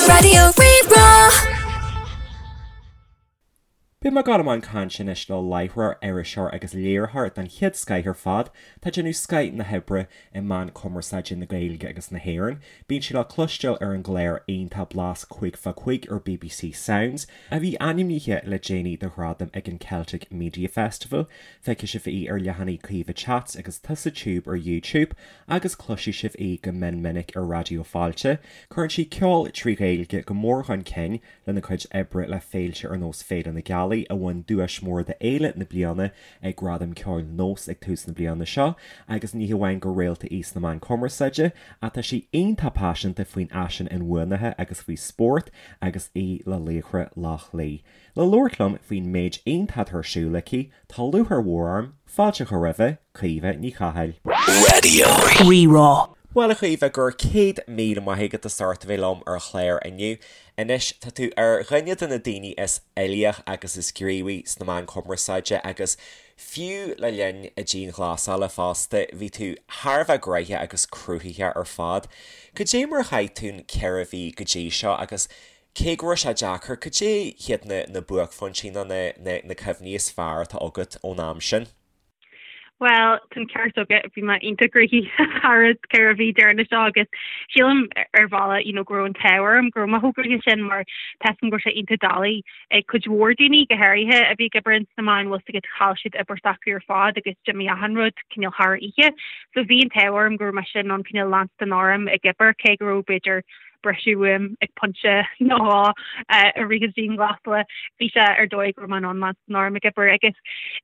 Raidió Rí-Rá. Beidh mé ag dul i mbun cainte anois le láithreoir, iriseoir agus léiritheoir den chéad scoith ar fad. Tá ag déanamh scoith na hoibre i meán cumarsáide na Gaeilge agus na hÉireann. Bíonn sí le cloisteáil ar an gclár iontach Blas 5 fá 5 ar bbc Sounds, a bhí ainmnithe le déanaí do ghradam ag an Celtic Media Festival. Feicfidh sibh í ar leathanaigh Caoimhe Chats agus Tusa Tube ar YouTube agus cloisfidh sibh í go mion minic ar Raidió Fáilte. Cuireann sí ceol trí Ghaeilge go mór chun cinn lena cuid oibre le féilte ar nós Féile na Gealaí, a bhain duais mór d'Fhéile na Bliana ag Gradaim Ceoil Nós ag tús na bliana seo, agus ní hamháin gur réalta í sna meáin cumarsáide, ach tá sí iontach paiseanta faoin fhaisean inbhuanaithe agus faoi spórt agus í le Laochra Loch Lao. Le labhairt liom faoin méid iontach atá ar siúl aici, tá lúcháir mhór orm fáilte a chur roimhe, Caoimhe Ní Chathail. Raidió Rí-Rá. Bhuel a Chaoimhe, go raibh 100,000 maith agat as ucht a bheith liom ar an chlár inniu. Anois, tá tú ar dhuine de na daoine is uilíoch agus is gníomhaí sna meáin chumarsáide agus fiú le linn na dianghlasála fosta, bhí tú thar a bheith gnoitheach agus cruthaitheach ar fad. Cad é mar a chaith tú an 4 mhí go dtí seo agus Cé go raibh sé deacair, cad é hiad na na buaicphointí nó na na na cuimhní is fearr atá agat ón am sin? Bhuel, tá an ceart agat, bhí mé iontach gnoitheach thar an 4 mhí deireanach seo agus sílim ar bhealach you know go raibh an t-ádh orm go raibh mé chomh gnoitheach sin mar tá a fhios agam go raibh sé iontach doiligh ag cuid mhór daoine, go háirithe a bhí ag obair ins na meáin, bhfuil a fhios agat chaill siad obair s'acu ar fad agus d'imigh achan rud cineál thar oíche. So bhí an t-ádh orm go raibh mise in ann cineál leanstan orm ag obair cé go raibh b'fhéidir briseadh uaim ag pointe nó dhó i rith an dianghlasála. Bhí sé ar dóigh go raibh mé in ann leanstan orm ag obair agus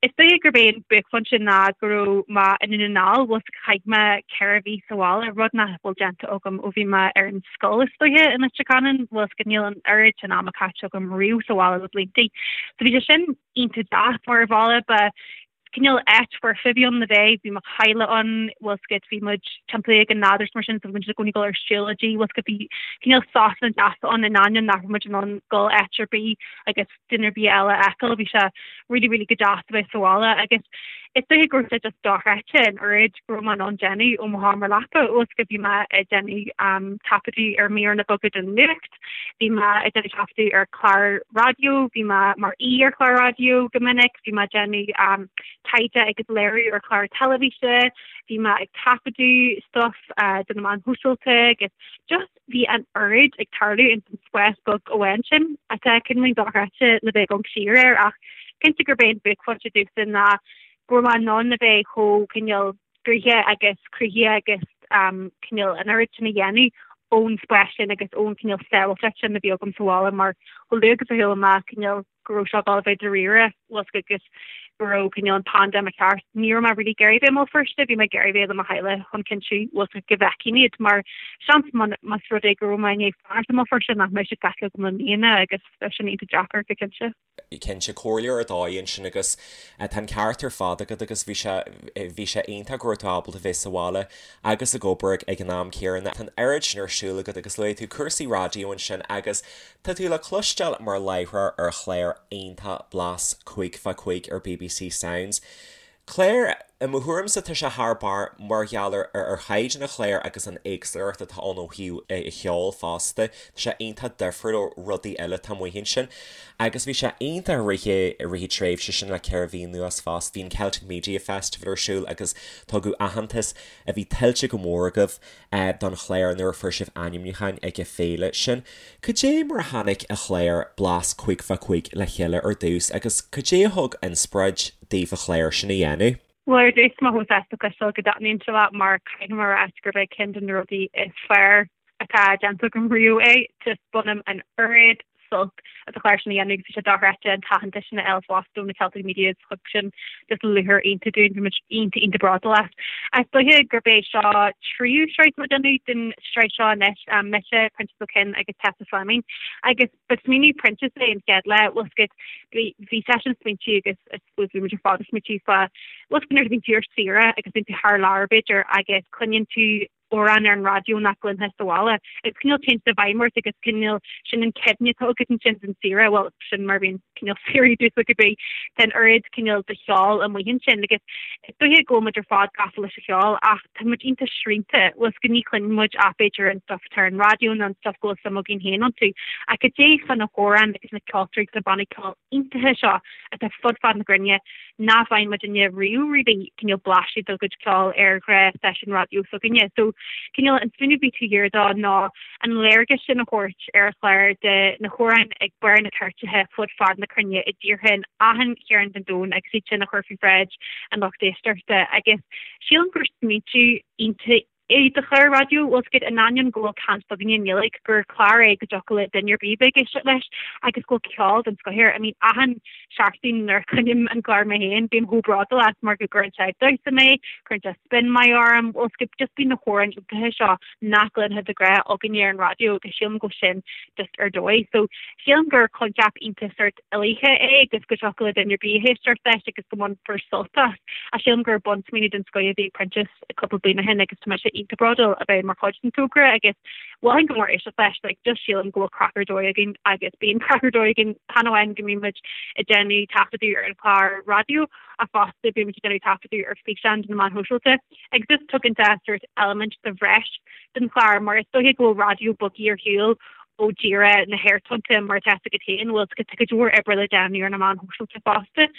is dóiche gurb é an buaicphointe ná go raibh mé i nDún na nGall, bhfuil a fhios agat chaith mé 4 mhí sa bhaile, rud nach bhfuil déanta agam ó bhí mé ar an scoil is dóiche i Leitir Ceanainn, bhfuil a fhios agat níl an oiread sin ama caite agam riamh sa bhaile le blianta. So bhí sé sin iontach deas mar ar bhealach ba cineál áit foirfe a bhí ann le bheith, bhí mo theaghlach ann, bhfuil a fhios agat, bhí muid timpeallaithe ag an nádúr is mar sin, so bhí muid i gcónaí ag dul ar siúlóidí, bhfuil a fhios agat, bhí cineál sosanna deasa ann in ainneoin nach raibh muid in ann dul áit ar bith agus duine ar bith eile a fheiceáil, bhí sé really really go deas a bheith sa bhaile agus is dóiche go raibh sé just dochreidte an oiread go raibh mé in ann déanamh ó mo sheomra leapa, bhfuil a fhios agat, bhí mé ag déanamh taifeadadh ar mhíreanna beaga den nuacht, Bhí mé ag déanamh taifeadadh ar chlár raidió, bhí mé mar aoi ar chlár raidió go minic, bhí mé ag déanamh taighde agus léiriú ar chlár teilifíse, bhí mé ag taifeadadh stuff do na meáin shóisialta agus just bhí an oiread ag tarlú ins an spás beag amháin sin atá cineál dochreidte le bheith ag amharc siar air ach cinnte gurb é an buaicphointe domhsa ná go raibh mé in ann a bheith chomh cineál gnoitheach agus cruthaitheach agus cineál an oiread sin a dhéanamh ón spás sin agus ón cineál sábháilteacht sin a bhí agam sa bhaile mar chomh luath agus a chuala mé cineál go raibh seo ag dul a bheith dáiríre bhfuil a fhios agat agus go raibh cineál an paindéim thart ní raibh mé really ag iarraidh bheith i mBéal Feirste bhí mé ag iarraidh bheith le mo theaghlach chun cinntiú bhfuil a fhios agat go bhfeicfinn iad mar seans más rud é go raibh mé i ndiaidh fanacht i mBéal Feirste nach mbeadh siad feicthe agam le míonna agus bheadh sin iontach deacair go cinnte. cinnte, comhairle ar dóigh ansin agus tá an ceart ar fad agat agus bhí sé, bhí sé iontach go raibh tú ábalta bheith sa bhaile agus ag obair ag an am céanna. Tá an oiread sin ar siúl agat agus luaigh tú cúrsaí raidió ansin agus tá tú le cloisteáil mar láithreoir ar chlár iontach Blas 5 fá 5 ar bbc Sounds. Clár, i mo thuairimse tá sé thar barr mar gheall ar ar chaighdeán an chláir agus an éagsúlacht atá ann ó thaobh an cheoil fosta. Tá sé iontach difriúil ó rudaí eile atá amuigh ansin. Agus bhí sé iontach i rith i rith an tréimhse sin le 4 mhí anuas fosta. Bhí an Celtic Media Festival ar siúl agus tugadh aitheantas a bhí tuillte go mór agaibh don chlár nuair a fuair sibh ainmniúcháin ag an féile sin. Cad é mar a tháinig an clár Blas 5 fá 5 le chéile ar dtús agus cad é a thug inspioráid daoibh an clár sin a dhéanamh? Bhuel ar dtús tá mé chomh sásta cloisteáil go dtaitníonn sé leat mar caithfidh mé a rá gurb é ceann de na rudaí is fearr atá déanta agam riamh é. Just bainim an oiread sult as an chlár sin a dhéanamh agus bhí sé dochreidte an t-aitheantas sin a fháil fosta ó na Celtic Medias thug sin just lúcháir iontach dúinn bhí muid iontach iontach bródúil as. Is dóiche gurb é seo tríú sraith atá muid ag déanamh den sraith seo anois, mise, Proinsias Ó Coinn agus Tessa Fleming agus ba smaoineamh Proinsias é an chéad lá bhfuil a fhios agat bhí bhí seisean ag smaointiú agus I suppose bhí muid ar fad ag smaointiú fá bhfuil a fhios agat nuair a bhíonn tú ar saoire agus bíonn tú thar lear b'fhéidir agus cluineann tú. amhrán ar an raidió nach gcluinfeá sa bhaile. Agus cineál téann sé i bhfeidhm ort agus cineál sin an cuimhne atá agat ansin den saoire, bhuel sin mar a bhíonn cineál saoirí domhsa cibé, tá an oiread cineál de cheol amuigh ansin agus is dóiche go bhfuil muid ar fad gafa leis an cheol ach tá muid iontach srianta, bhfuil 's agat ní chluineann muid ach b'fhéidir an stuff atá ar an raidió nó an stuff go bhfuil suim againn féin iontu. Ach cad é fá na hamhráin agus na ceoltóirí agus na bannaí ceoil iontacha seo atá fud fad na cruinne nach bhfaigheann muidinne riamh really cineál blaiseadh dá gcuid ceoil ar ghnáth stáisiún raidió s'againne. So cineál an smaoineamh a bhí taobh thiar dó ná an léargas sin a thabhairt ar an chlár de na hamhráin ag barr na cairteacha fud fad na cruinne i dtíortha in achan chearn den domhan agus iad sin a chur faoi bhráid an lucht éisteachta agus sílim gur smaointiú iontach é do chlár raidió, bhfuil 's agat, in ainneoin go bhfuil caint againne i nGaeilge, gur clár é go dtiocfadh le duine ar bith bheith ag éisteacht leis agus go bhfuil ceol den scoth air. I mean, achan seachtain nuair a chluinim an clár mé féin, bím chomh bródúil as mar go gcuireann sé ag damhsa mé, cuireann sé spin maith orm, bhfuil 's agat, just bíonn na hamhráin iontacha seo nach gcluinfeá de ghnáth againne ar an raidió agus sílim go bhfuil sin just ar dóigh. So, sílim gur coincheap iontach sort uilíoch é agus go dtiocfadh le duine ar bith éisteacht leis agus go mbainfear sult as. Ach sílim gur bunsmaoineamh den scoth a bhí ag Proinsias. cúpla bliain ó shin agus tá mise iontach bródúil a bheith mar chuid den togra agus mholfainn go mór éisteacht leis, like just sílim go bhfuil craic ar dóigh againn agus bíonn craic ar dóigh againn chan amháin go mbíonn muid ag déanamh taifeadadh ar an chlár raidió ach fosta bíonn muid ag déanamh taifeadadh ar físeán do na meáin shóisialta agus just tugann sé sort eilimint de bhreis don chlár mar is dóiche go bhfuil raidió bogtha ar shiúl ó díreach na haerthonnta mar atá 's agat féin bhfuil 's agat tá cuid mhór oibre le déanamh ar na meáin shóisialta fosta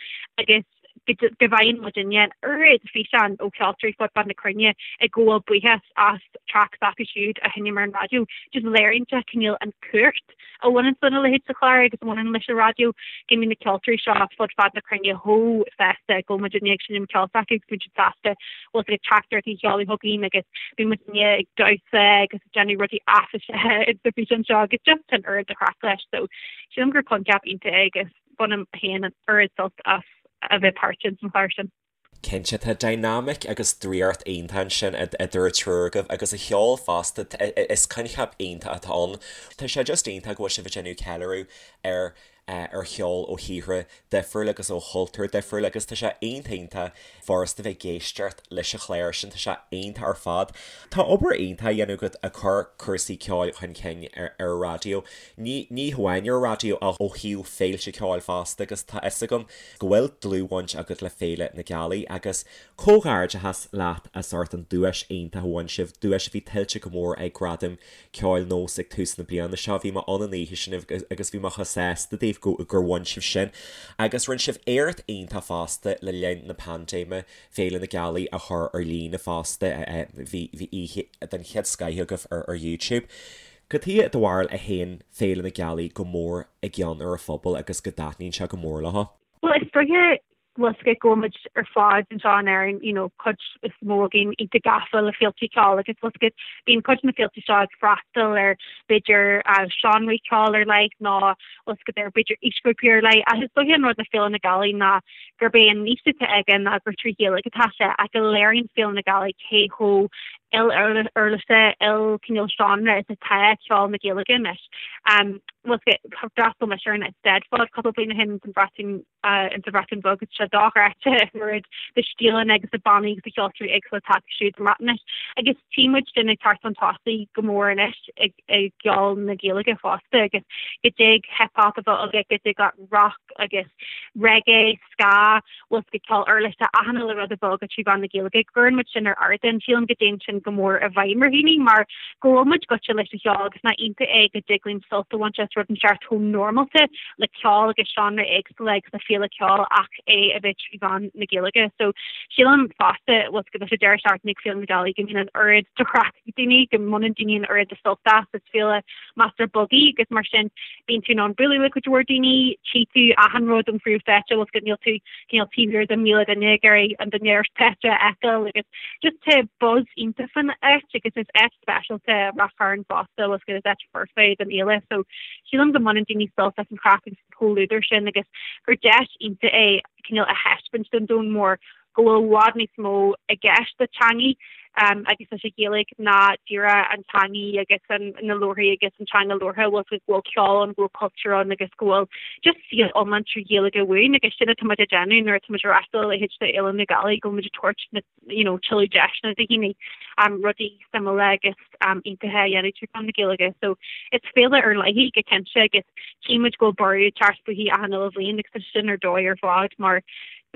agus go bhfaigheann muidinne an oiread físeán ó cheoltóirí fud fad na cruinne ag gabháil buíochas as traic s'acu siúd a sheinm ar an raidió. Just léiríonn sé cineál an chumhacht a bhaineann lena leithéid de chlár agus a bhaineann leis an raidió, go mbíonn na ceoltóirí seo fud fad na cruinne chomh sásta go bhfuil muidinne ag seinm ceol s'acu agus bíonn siad sásta bhfuil 's agat teachtaireachtaí a sheoladh chugainn agus bíonn muidinne ag damhsa agus ag déanamh rudaí áiféiseacha sa bhfíseán seo agus just an oiread de chraic leis. So sílim gur coincheap iontach é agus Bainim féin an oiread sult as a bheith páirteach san chlár sin. Cinnte, tá dynamic agus draíocht iontach ansin idir an triúr agaibh agus an cheol fosta, is coincheap iontach atá ann. Tá sé just iontach go bhfuil sibh ag déanamh ceiliúradh ar ar cheol ó thíortha difriúla agus ó chultúir difriúla agus tá sé iontach iontach furasta bheith ag éisteacht leis an chlár sin, tá sé iontach ar fad. Tá obair iontach á dhéanamh agat ag cur cúrsaí ceoil chun cinn ar an raidió, ní ní hamháin ar an raidió ach ó thaobh féilte ceoil fosta agus tá fhios agam go bhfuil dlúthbhaint agat le Féile na Gealaí agus comhghairdeachas leat as ucht an duais iontach a bhain sibh, duais a bhí tuillte go mór ag Gradaim Ceoil Nós ag tús na bliana seo. Bhí mé ann an oíche sin agus bhí mé chomh sásta daoibh go gur bhain sibh sin. Agus rinne sibh éacht iontach fosta le linn na paindéime, Féile na Gealaí a chur ar líne fosta. Bhí bhí oíche den chéad scoith agaibh ar ar YouTube. Cad chuige i do bharúil a théann Féile na Gealaí go mór i gcion ar an phobal agus go dtaitníonn sé go mór leo? Bhuel, is dóiche bhfuil 's agat go bhfuil muid ar fad anseo in Éirinn, you know, cuid is mó againn iontach gafa le féilte ceoil agus bhfuil 's agat bíonn cuid de na féilte seo ag freastal ar b'fhéidir seánraí ceoil ar leith nó bhfuil 's agat ar b'fhéidir aoisghrúpaí ar leith ach is dóiche an rud le Féile na Gealaí ná gurb é an níos atá aige ná gur trí Ghaeilge atá sé ach go léiríonn Féile na Gealaí cé chomh il-uirlise, il-cineál seánra is atá ceol na Gaeilge anois. Bhfuil 's agat d'fhreastail mise ar an Eisteddfod cúpla bliain ó shin sa Bhreatain in sa Bhreatain Bheag agus tá sé dochreidte an oiread de stíleanna agus de bannaí agus de cheoltóirí éagsúla atá acu siúd sa mBreatnais. Agus tchí muid sin ag teacht chun tosaigh go mór anois i gceol na Gaeilge fosta agus go dtig hip hop a bheith agat, go dtig leat rock agus reggae, ska, bhfuil 's agat ceol uirlise, achan uile rud a bheith agat trí mheán na Gaeilge. Cuireann muid sin ar ardán. Sílim go dtéann sin go mór i bhfeidhm ar dhaoine mar go bhfuil muid gaite leis an cheol agus nach iontach é go dtig linn sult a bhaint as rud inteacht chomh normálta le ceol agus seánra éagsúla agus le féile ceoil ach é a bheith trí mheán na Gaeilge. So sílim fosta bhfuil 's agat leis an deireadh seachtaine ag Féile na Gealaí go mbíonn an oiread de chraic ag daoine, go mbaineann daoine an oiread de sult as, is féile measartha beag í agus mar sin bíonn tú in ann bualadh le cuid mhór daoine, tchí tú achan rud ón phríomhstáitse, bhfuil 's agat níl tú cineál taobh thiar de 1,000 duine ag iarraidh an duine ar stáitse a fheiceáil agus just tá buzz iontach fan áit agus is áit speisialta Rath Chairn fosta, bhfuil 's agat is áit foirfe don fhéile so sílim go mbaineann daoine sult as an chraic agus an comhluadar sin agus gur deis iontach é cineál a thaispeáint don domhan mór go bhfuil i bhfad níos mó i gceist le teangaidh. Agus leis an Ghaeilge ná díreach an teangaidh agus an na leabharthaí agus an teanga labhartha, bhfuil go bhfuil ceol ann, go bhfuil cultúr ann agus go bhfuil just saol iomlán trí Ghaeilge amháin agus sin atá muid ag déanamh nuair atá muid ag reáchtáil a leithéid de Fhéile na Gaeilge, go bhfuil muid ag tabhairt na you know tuilleadh deiseanna do dhaoine rudaí suimiúla agus iontacha a dhéanamh trí mheán na Gaeilge. So is féile ar leith í go cinnte agus tchí muid go bhfuil borradh ag teacht fúithi achan uile bhliain agus tá sin ar dóigh ar fad mar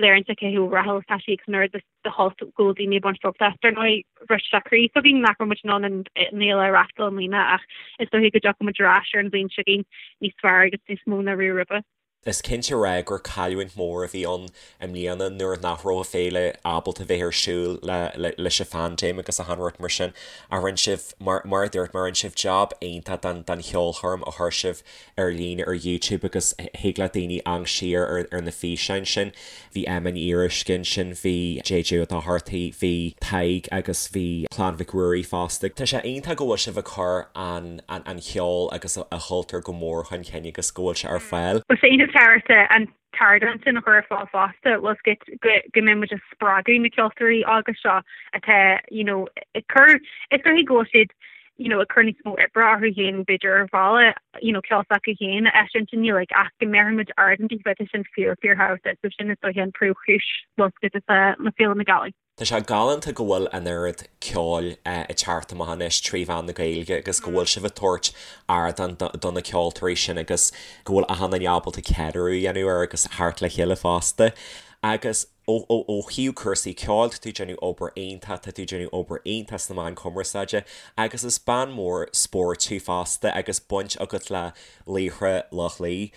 léiríonn sé cé chomh rathúil is atá sí agus an oiread de shult go bhfuil daoine ag baint sult as. Dar ndóigh, bhris sé croí s'againn nach raibh muid in ann an fhéile a reáchtáil i mbliana ach is dóiche go dtiocfaidh muid ar ais ar an bhliain seo chugainn níos fearr agus níos mó ná riamh roimhe. Is cinnte a rá gur cailliúint mhór a bhí ann i mbliana nuair nach raibh an féile ábalta bheith ar siúl leis an phaindéim agus achan rud mar sin. Ach rinne sibh, mar a dúirt mé, rinne sibh jab iontach den cheolchoirm a chuir sibh ar líne ar YouTube agus thig le daoine amharc siar ar na físeáin sin. Bhí Emma Ní Fhíoruisce ansin, bhí JJ Ó Dochartaigh, bhí Tadhg agus bhí Clann Mhic Ruairí fosta. Tá sé iontach go bhfuil sibh ag cur an cheoil agus an chultúir go mór chun cinn agus go bhfuil sé ar fáil. Bhfuil sé iontach tábhachtach an t-ardán sin a chur ar fáil fosta, bhfuil 's agat go mbeidh muid ag spreagadh na ceoltóirí óga seo atá you know ag cur, is dóichí go bhfuil siad you know, ag cur níos mó oibre orthu féin b'fhéidir ar bhealach, you know, ceol s'acu féin a eisiúint i nGaeilge ach go mbeirfidh muid ardán daofa, tá sin fíor, fíorthábhachtach so sin is dóiche an príomhchúis bhfuil 's agat le Féile na Gaeilge. Tá sé galánta go bhfuil an oiread ceoil ag teacht amach anois trí mheán na Gaeilge agus go bhfuil sibh ag tabhairt ardán do na ceoltóirí sin agus go bhfuil achan duine ábalta ceiliúradh a dhéanamh air agus theacht le chéile fosta. Agus. Ó thaobh cúrsaí ceoil, tá tú ag déanamh obair iontach, tá tú ag déanamh obair iontach sna meáin cumarsáide agus is bean mhór spóirt thú fosta agus baint agat le Laochra Loch Lao.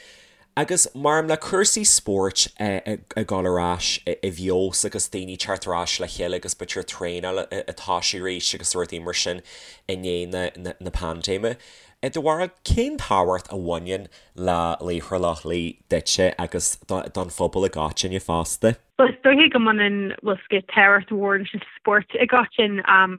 Agus maram le cúrsaí spóirt ag dul ar ais i bhfeabhas agus daoine teacht ar ais le chéile agus b'fhéidir traenáil ag toisiú arís agus rudaí mar sin i ndiaidh na paindéime. I do bharúil, cén tábhacht a bhaineann le Laochra Loch Lao duitse agus don phobal i gcoitinne fosta? Bhuel, is dóiche go mbaineann, bhfuil 's agat, tábhacht mhór leis an spórt i gcoitinn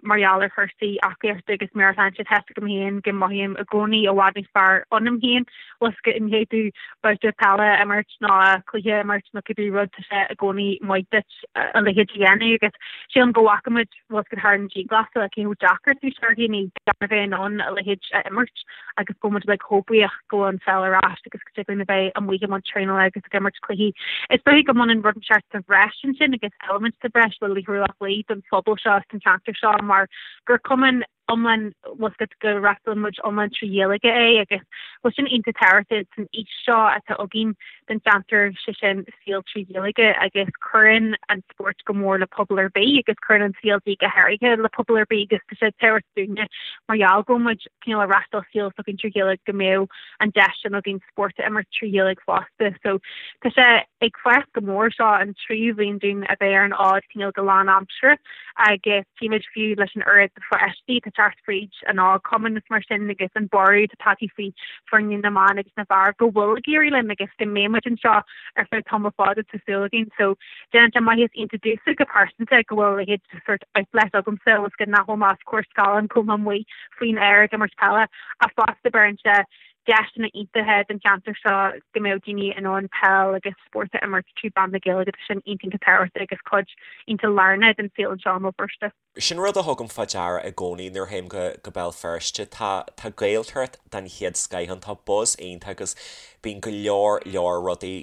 mar gheall ar chúrsaí aclaíochta agus meabhairshláinte. Tá 's agam féin go mothaím i gcónaí i bhfad níos fearr ionam féin, bhfuil 's agat, i ndiaidh domh babhta peile a imirt nó cluiche a imirt nó cibé rud, tá sé i gcónaí maith duit a leithéid a dhéanamh agus sílim go bhfaca muid bhfuil 's agat thar an dianghlasáil, cé chomh deacair is a bhí sé ar dhaoine gan a bheith in ann a leithéid a imirt agus go bhfuil muid uilig chomh buíoch go bhfuil an pheil ar ais agus go dtig linn a bheith amuigh i mbun traenála agus ag imirt cluichí. Is dóiche go mbaineann rud inteacht sa bhreis ansin agus eilimint sa bhreis le Laochra Loch Lao don phobal seo agus don cheantar seo mar gur cumann iomlán, bhfuil 's agat, go reáchtálann muid iomlán trí Ghaeilge é agus bhfuil sin iontach tábhachtach san fhís seo atá againn don cheantar, sé sin saol trí Ghaeilge agus cuireann an spórt go mór le pobal ar bith agus cuireann an CLG go háirithe le pobal ar bith agus tá sé tábhachtach dúinne mar gheall go bhfuil muid cineál ag reáchtáil saol s'againn trí Ghaeilge go mbeadh an deis sin againn spórt a imirt trí Ghaeilge fosta. So tá sé ag fás go mór seo an tríú bhliain dúinn a bheith ar an fhód cineál go lánaimseartha agus tchímid fiú leis an oiread de pháistí atá ag teacht fríd an óg-chumann is mar sin agus an borradh atá tagtha faoi foirne na mban agus na bhfear go bhfuil ag éirí linn agus go mbeidh muid anseo ar feadh tamall fada tá súil againn. So déanann sé maitheas iontach domhsa go pearsanta go bhfuil a leithéid de sort outlet agamsa agus go nach bhfuil mé os comhair scáileáin go bhfuil mé amuigh faoin aer ag imirt peile ach fosta beireann sé deiseanna iontacha don cheantar seo go mbeadh daoine in ann peil agus spórt a imirt trí mheán na Gaeilge. Tá sin iontach iontach tábhachtach agus cuid iontach lárnach den saol anseo i mBéal Feirste. Sin rud a thugaim fá deara i gcónaí nuair a théim go go Béal Feirste. Tá tá Gaeltacht den chéad scoith ann, tá buzz iontach agus bíonn go leor leor rudaí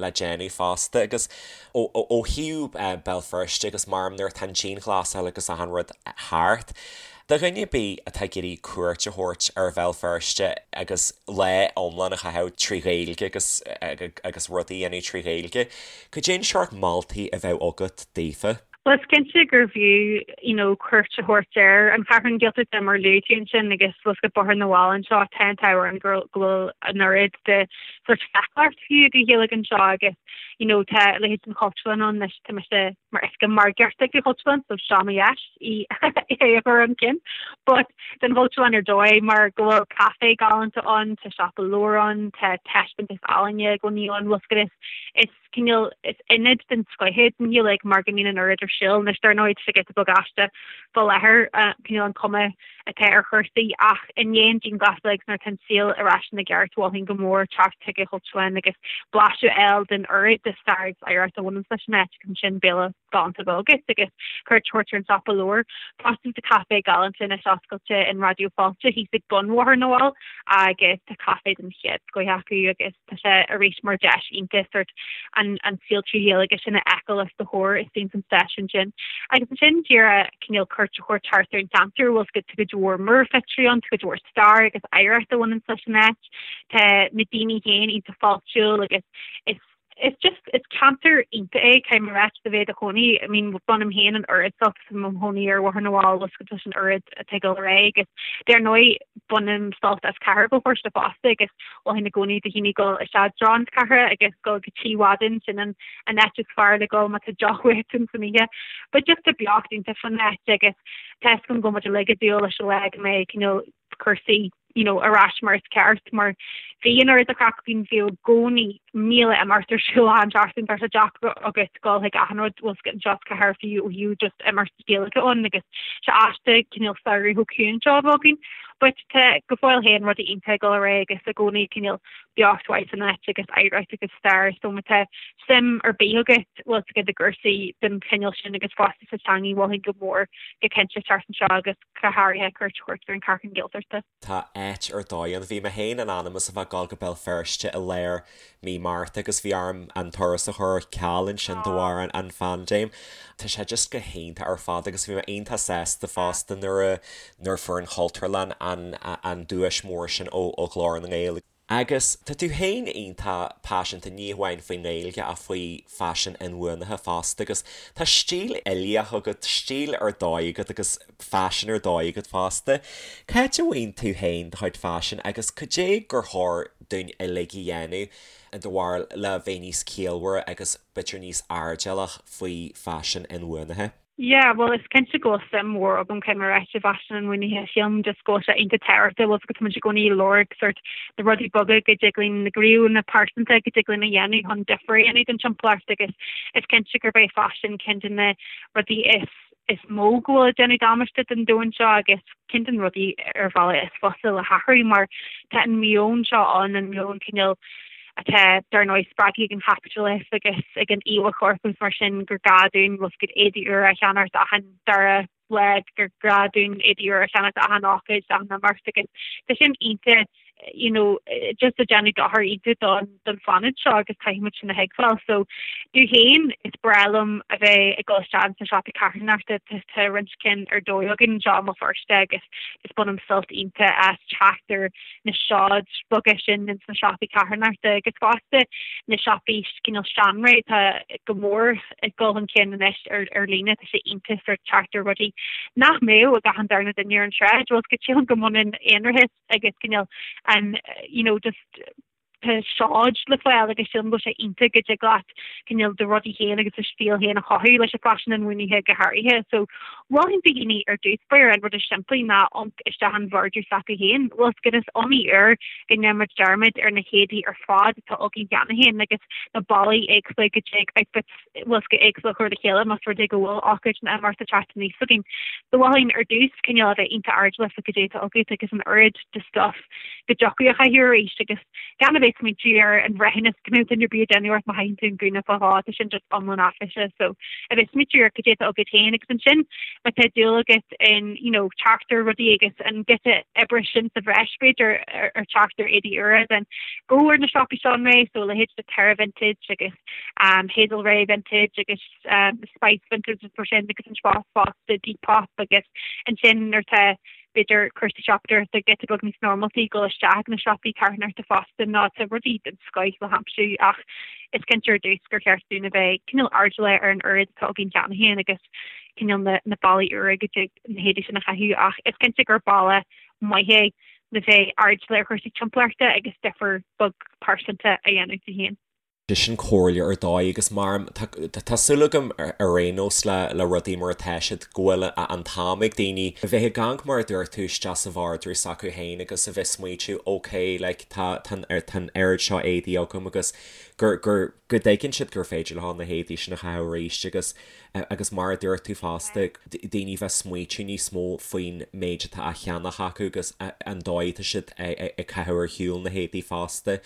le déanamh fosta agus ó ó thaobh Béal Feirste agus maram nuair atá an dianghlasáil agus achan rud thart, Do dhuine ar bith atá ag iarraidh cuairt a thabhairt ar Bhéal Feirste agus lá iomlán a chaitheamh trí Ghaeilge agus agus rudaí a dhéanamh trí Ghaeilge, cad é an seort moltaí a bheadh agat daofa? Bhuel, is cinnte gurbh fhiú you know cuairt a thabhairt ar an Cheathrú Gaeltachta mar luaigh tú ansin agus bhfuil 's agat Bóthar na bhFál anseo, tá an t-ádh orainn go bhfuil an oiread de sort feiceálacht fiú de Ghaeilge anseo agus you know tá a leithéid den Chultúrlann ann anois, tá mise mar oifigeach margaíochta ag an Chultúrlann so seo mo dheis í é a chur chun cinn. But don Chultúrlann ar dóigh mar go bhfuil caifé galánta ann, tá siopa leabhar ann, tá taispeántas ealaíne i gcónaí ann, bhfuil 's agat is is cineál is ionad den scoith é don Ghaeilge mar go mbíonn an oiread ar siúl. Anois dar ndóigh tá sé giota beag aisteach fá láthair cineál an cuma atá ar chúrsaí ach i ndiaidh an dianghlasáil agus nuair atá an saol ar ais ina gceart mholfainn go mór teacht chuig an Chultúrlann agus blaiseadh a fháil den oiread. de stair agus oidhreacht a bhaineanns leis an áit agus ansin béile galánta a bheith agat agus cuairt a thabhairt ar an siopa leabhar. Fosta tá caifé galánta anois oscailte in Raidió Fáilte thíos ag bun Bhóthar na bhFál agus tá caife den chéad scoith acu agus tá sé arís mar deis iontach sort an an saol 3 Ghaeilge sin a fheiceáil os do chomhair istigh san stáisiún sin. Agus ansin díreach cineál cuairt a thabhairt thart ar an cheantar bhfuil 's agat tá cuid mhór múrphictiúirí ann, tá cuid mhór stair agus oidhreacht a bhaineanns leis an áit. Tá na daoine féin iontach fáiltiúil agus is is just is ceantar iontach é caithfidh mé a ráit do bheith i do chónaí. I mean bainim féin an oiread sult as i mo chónaí ar Bhóthar na bhFál bhfuil 's agat leis an oiread atá ag dul ar aghaidh agus dar ndóigh bainim sult as cathair Bhéal Feirste fosta agus mholfainn i gcónaí do dhaoine dul isteach i dtreo na cathrach agus dul go Tigh Mhadain sin an an áit is fearr le dul má tá deoch uait ins an oíche. But just tá beocht iontach fan áit agus tá 'fhios agam go bhfuil muid uilig ag dúil leis an lá go mbeidh cineál cúrsaí you know, ar ais mar is ceart, mar bhí an oiread de chraic againn, bhí i gcónaí 1,000 imeacht ar siúl achan seachtain, tá sé deacair agat dul chuig achan rud bhfuil 's agat anseo sa chathair fiú ó thaobh just imeacht Gaeilge ann agus sé aisteach cineál samhradh chomh ciúin seo a bheith againn. But tá go fóill féin rudaí iontach ag dul ar aghaidh agus i gcónaí cineál beocht mhaith san áit agus oidhreacht agus stair so má tá suim ar bith agat bhfuil 's agat i gcúrsaí den chineál sin agus fosta sa teangaidh mholfainn go mór go cinnte teacht anseo agus go háirithe cuairt a thabhairt ar an Chartlann Gaeltachta. Tá áit ar dóigh ann. Bhí mé féin in ainm is a bheith ag dul go Béal Feirste i lár mí Márta agus bhí orm an turas a chur ar ceal ansin de bharr an phaindéim. Tá sé just go hiontach ar fad agus bhí mé iontach sásta fosta nuair a nuair a fuair an Chultúrlann an an duais mór sin ó Ghlór na nGael. Agus tá tú féin iontach paiseanta, ní hamháin faoin nGaeilge ach faoi faisean inbhuanaithe fosta agus tá stíl uilíoch agat, stíl ar dóigh agat agus faisean ar dóigh agat fosta. Cá háit a bhfaigheann tú féin do chuid faisin agus cad é gur chóir dúinn uilig a dhéanamh i do bharúil le bheith níos ciallmhaire agus b'fhéidir níos airdeallach faoi faisean inbhuanaithe? Yeah, bhuel is cinnte go bhfuil suim mhór agam caithfidh mé a ráit i bhfaisean inbhuanaithe. Sílim just go bhfuil sé iontach tábhachtach, bhfuil 's agat tá muid i gcónaí ag lorg sort na rudaí beaga go dtig linn, na gníomhanna pearsanta go dtig linn a dhéanamh chun difear a dhéanamh don timpeallacht agus is cinnte gurb é faisean ceann de na rudaí is is mó go bhfuil ag déanamh damáiste don domhan seo agus ceann de na rudaí ar bhealach is fusa le hathrú mar tá an meon seo ann, an meon cineál atá, dar ndóigh, spreagtha ag an chaipitleachas agus ag an íomhá choirp agus mar sin, gur gá dúinn bhfuil 's agat éadaí úra a cheannacht achan dara lá, gur gá dúinn éadaí úra a cheannacht achan ócáid, achan imeacht agus tá sin iontach you know, just ag déanamh dochar iontach don don phláinéad seo agus caithfidh muid sin a thuigbheáil. So, domh féin, is breá liom a bheith ag dul isteach sna siopaí carthanachta, tá roinnt cinn ar dóigh againn anseo i mBéal Feirste agus just bainim sult iontach as teacht ar na seoid beaga sin ins na siopaí carthanachta agus fosta na siopaí cineál seanré atá go mór ag dul chun cinn anois ar ar líne tá sé iontach sort teacht ar rudaí nach mbeadh ag achan darna duine ar an tsráid bhfuil 's agat sílim go mbaineann aonarachas agus cineál an you know just tá seoid le fáil agus sílim go bhfuil sé iontach go dtig leat cineál do rudaí féin agus do stíl féin a chothú leis an bhfaisean inbhuanaithe go háirithe. So mholfainn do dhaoine ar dtús báire an rud is simplí ná amharc isteach in vardrús s'acu féin. Bhfuil 's agat is iomaí uair go ndéanann muid dearmad ar na héadaí ar fad atá againn cheana féin agus na bealaí éagsúla go dtig outfits bhfuil 's agat éagsúla a chur le chéile más rud é go bhfuil ócáid nó imeacht ag teacht aníos againn. So mholfainn ar dtús cineál a bheith iontach airdeallach faoi cad é atá agat agus an oiread de stuff go dtiocfadh a chaitheamh arís agus gan a bheith ag smaointiú ar an bhreithiúnas go mbeadh duine ar bith ag déanamh ort má chaitheann tú an gúna fá dhó, tá sin just iomlán áiféiseach. So a bheith ag smaointiú ar cad é atá agat féin agus ansin má tá dúil agat in you know teacht ar rudaí agus an giota oibre sin sa bhreis b'fhéidir ar teacht ar éadaí úra then go ar na siopaí seanré so a leithéid de Terra Vintage agus um, Hazel Rae Vintage agus um, Spice Vintage agus mar sin agus an fosta Depop agus ansin nuair atá b'fhéidir cúrsaí siopadóireachta giota beag níos normaltaí dul isteach na siopaí carthanachta fosta nó tá rudaí den scoith le haimsiú ach is cinnte ar dtús gur cheart dúinn a bheith cineál airdeallach ar an oiread atá againn cheana féin agus cineál na, na bealaí úra go dtig na héadaí sin a chaitheamh ach is cinnte gur bealach maith é le bheith airdeallach ar chúrsaí timpeallachta agus difear beag pearsanta a dhéanamh di féin. Sin comhairle ar dóigh agus mar tá súil agam ar aon nós le le rudaí mar atá siad go bhfuil an t-am ag daoine a bheith ag amharc mar a dúirt tú isteach sa vardrús s'acu féin agus a bheith smaointiú ok like tá tá tá an oiread seo éadaí agam agus gur gur go dtuigeann siad gur féidir leo na héadaí sin a chaitheamh arís agus agus mar a dúirt tú fosta daoine bheith smaointiú níos mó faoin méid atá á cheannach acu agus an dóigh atá siad ag caitheamh ar shiúl na héadaí fosta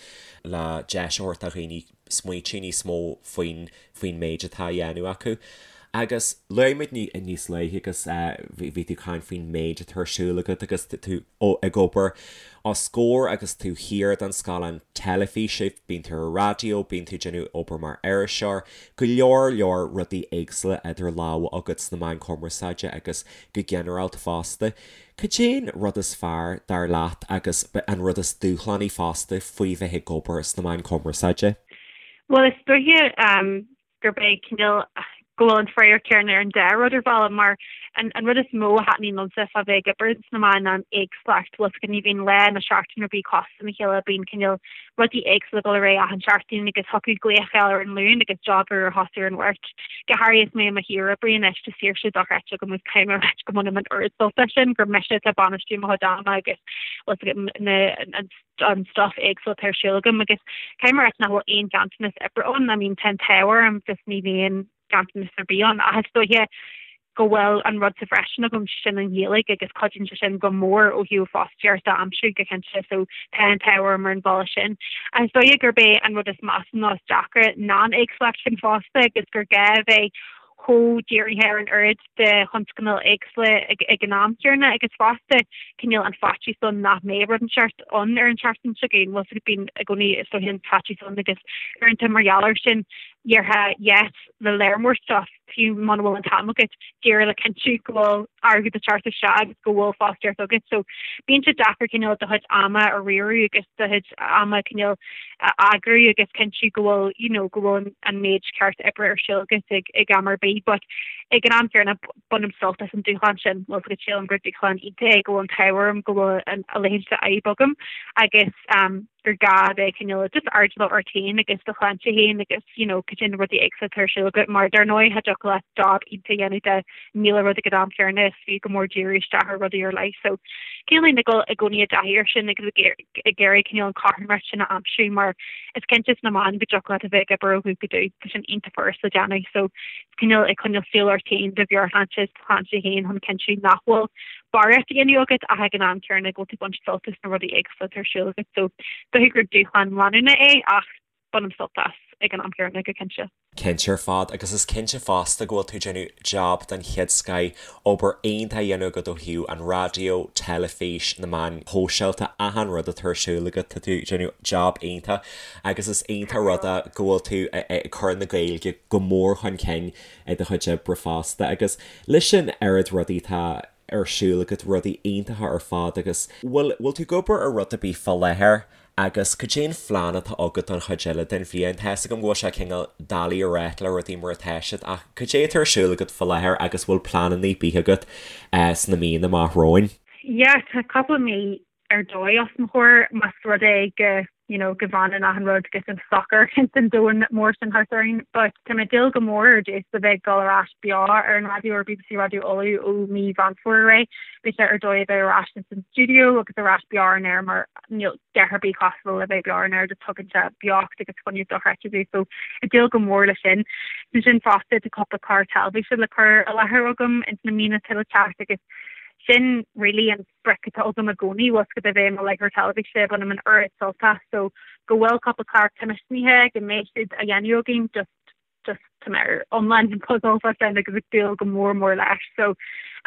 le deis a thabhairt do dhaoine. smaoitiú níos mó faoin faoin méid atá á dhéanamh acu. Agus luaigh muid níos luaithe agus bhí tú ag caint faoin méid atá ar siúl agat agus tú ag obair os comhair agus tú thiar don scáileán teilifíse, bíonn tú ar an raidió, bíonn tú ag déanamh obair mar iriseoir, go leor leor rudaí éagsúla idir lámha agat sna meáin chumarsáide agus go ginearálta fosta. Cad é an rud is fearr, dar leat, agus an rud is dúshlánaí fosta faoi bheith ag obair sna meáin chumarsáide? Bhuel, is dóiche gurb é cineál go bhfuil an freagra céanna ar an dá rud ar bhealach mar an an rud is mó a thaitníonn liomsa fá bheith ag obair sna meáin ná an éagsúlacht. Bhfuil fhios agat ní bhíonn lá ná seachtain ar bith cosúil lena chéile, bíonn cineál rudaí éagsúla ag dul ar aghaidh achan seachtain agus thiocfadh glaoch a fháil ar an Luan agus job úr a thosú ar an Mháirt. Go háirithe is mé i mo shaoroibrí anois, tá saoirse dochreidte agam agus caithfidh mé a ráit go mbainim an oiread sult as sin gur mise atá ag bainistiú mo chuid ama agus bhfuil fhios agat na an an stuff éagsúil atá ar siúl agam agus caithfidh mé a ráit nach bhfuil aon ghanntanas oibre ann. I mean tá an t-ádh orm just ní bhíonn ganntanas ar bith ann ach is dóiche go bhfuil an rud sa bhreis sin agam, sin an Ghaeilge agus cuidíonn sé sin go mór ó thaobh fostaíocht a aimsiú go cinnte so tá an t-ádh orm ar an bhealach sin. Ach is dóiche gurb é an rud is measa nó is deacra ná an éagsúlacht sin fosta agus gur gá a bheith chomh dírithe ar an oiread de thionscnaimh éagsúla ag an am céanna agus fosta cineál an faitíos ann nach mbeidh rud inteacht ann ar an tseachtain seo chugainn. Bhfuil fhios agat bíonn i gcónaí is dóiche an faitíos ann agus uaireanta mar gheall air sin déarfá yes le lear mór stuff fiú muna bhfuil an t-am agat díreach le cinntiú go bhfuil airgead ag teacht isteach agus go bhfuil fostaíocht agat. So bíonn sé deacair cineál do chuid ama a riaradh agus do chuid ama cineál a eagrú agus cinntiú go bhfuil you know go bhfuil an méid ceart oibre ar siúl agat ag ag am ar bith but ag an am céanna bainim sult as an dúshlán sin bhfuil fhios agat sílim gur dúshlán iontach é go bhfuil an t-ádh orm go bhfuil an a leithéid de fhadhb agam agus um, gur gá a bheith cineál just airdeallach ort féin agus do shláinte féin agus you know cad é na rudaí éagsúla atá ar siúl agat mar dar ndóigh cha dtiocfadh leat job iontach a dhéanamh de 1000 rud ag an am céanna is fiú go mór díriú isteach ar rudaí ar leith so cineál ag dul i gcónaí i dtaithí air sin agus ag iarraidh cineál an chothromaíocht sin a aimsiú mar is cinnte sna meáin go dtiocfadh leat a bheith ag obair ó dhubh go dubh tá sin iontach furast le déanamh so cineál ag coinneáil súil ort féin do mheabhairshláinte is do shláinte féin chun cinntiú nach bhfuil barraíocht á dhéanamh agat ach ag an am céanna go bhfuil tú ag baint sult as na rudaí éagsúla atá ar siúl agat. So dóiche gur dúshlán leanúnach é ach bainim sult as ag an am céanna go cinnte. Cinnte ar fad, agus is cinnte fosta go bhfuil tú ag déanamh jab den chéad scoith, obair iontach á dhéanamh agat ó thaobh an raidió, teilifís, na meáin shóisialta, achan rud atá ar siúl agat, tá tú ag déanamh jab iontach agus is iontach rud é go bhfuil tú ag cur na Gaeilge go mór chun cinn i do chuid oibre fosta agus leis an oiread rudaí atá ar siúl agat, rudaí iontacha ar fad agus bhfuil, bhfuil tú ag obair ar rud ar bith fá láthair agus cad é an phlean atá agat don chuid eile den bhliain? Tá fhios agam go bhfuil sé cineál doiligh a ráit le rudaí mar atá siad ach cad é atá ar siúl agat fá láthair agus bhfuil pleananna ar bith agat sna míonna amach romhainn? Yeah, tá cúpla mí ar dóigh os mo chomhair más rud é go you know go bhfanann achan rud go socair ins an domhan mór sin thart orainn. But tá mé ag dúil go mór ar dtús le bheith ag dul ar ais beo ar an raidió ar BBC Raidió Uladh ó mí Mheán Fómhair ar aghaidh. Beidh sé ar dóigh a bheith ar ais ins an stiúideo agus ar ais beo ar an aer mar níl a dhath ar bith cosúil le bheith beo ar an aer just tugann sé beocht agus fuinneamh dochreidte duit so ag dúil go mór le sin. Ansin fosta tá cúpla clár teilifíse le cur i láthair agam ins na míonna atá le teacht agus sin really an sprioc atá agam i gcónaí, bhfuil fhios agat a bheith i mo láithreoir teilifíse, bainim an oiread sult as, so go bhfuil cúpla clár coimisiúnaithe, go mbeidh siad á dhéanamh againn, just, just tá mé ar iomlán buzzálta fá sin agus ag dúil go mór mór leis. So,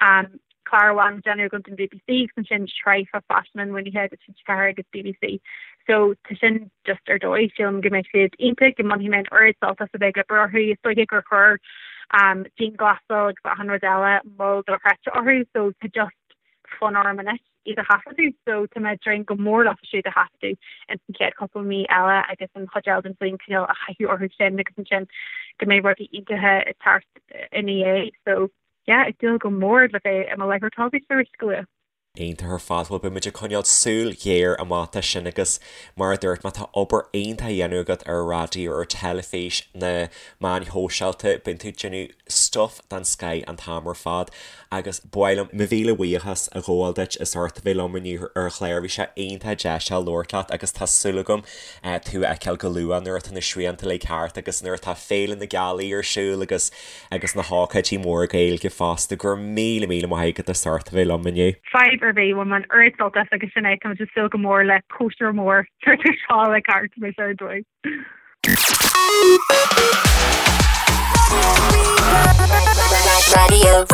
um, clár amháin á dhéanamh agam don BBC agus ansin sraith fá faisean inbhuanaithe do TG4 agus BBC. So tá sin just ar dóigh, sílim go mbeidh siad iontach, go mbainfidh mé an oiread sult as a bheith ag obair orthu, is dóiche gur chuir um, dianghlasáil agus achan rud eile moill dochreidte orthu, so tá just fonn orm anois iad a thaifeadadh so tá mé ag dréim go mór leofa siúd a thaifeadadh ins an chéad chúpla mí eile agus an chuid eile den bhliain cineál a chaitheamh orthu sin agus ansin go mbeidh rudaí iontacha ag teacht ina dhiaidh so yeah ag dúil go mór le bheith i mo láithreoir teilifíse arís go luath. Iontach ar fad, bhuel beidh muid ag coinneáil súil ghéar amach dó sin agus mar a dúirt mé tá obair iontach á dhéanamh agat ar an raidió, ar teilifís, na meáin shóisialta, bíonn tú ag déanamh stuff den scoith an t-am ar fad agus ba mhaith liom mo mhíle buíochas a ghabháil duit as ucht a bheith liom inniu ar an chlár. Bhí sé iontach deas labhairt leat agus tá súil agam tú a fheiceáil go luath nuair atá na srianta uilig thart agus nuair atá Féile na Gealaí ar siúl agus agus na hócáidí móra Gaeilge fosta. Go raibh míle míle maith agat as ucht a bheith liom inniu. Fadhb ar bith, bhain mé an oiread sult as agus sin é, tá muid ag súil go mór le cóisir mór nuair atá seo uilig thart, beidh sé ar dóigh. Raidió.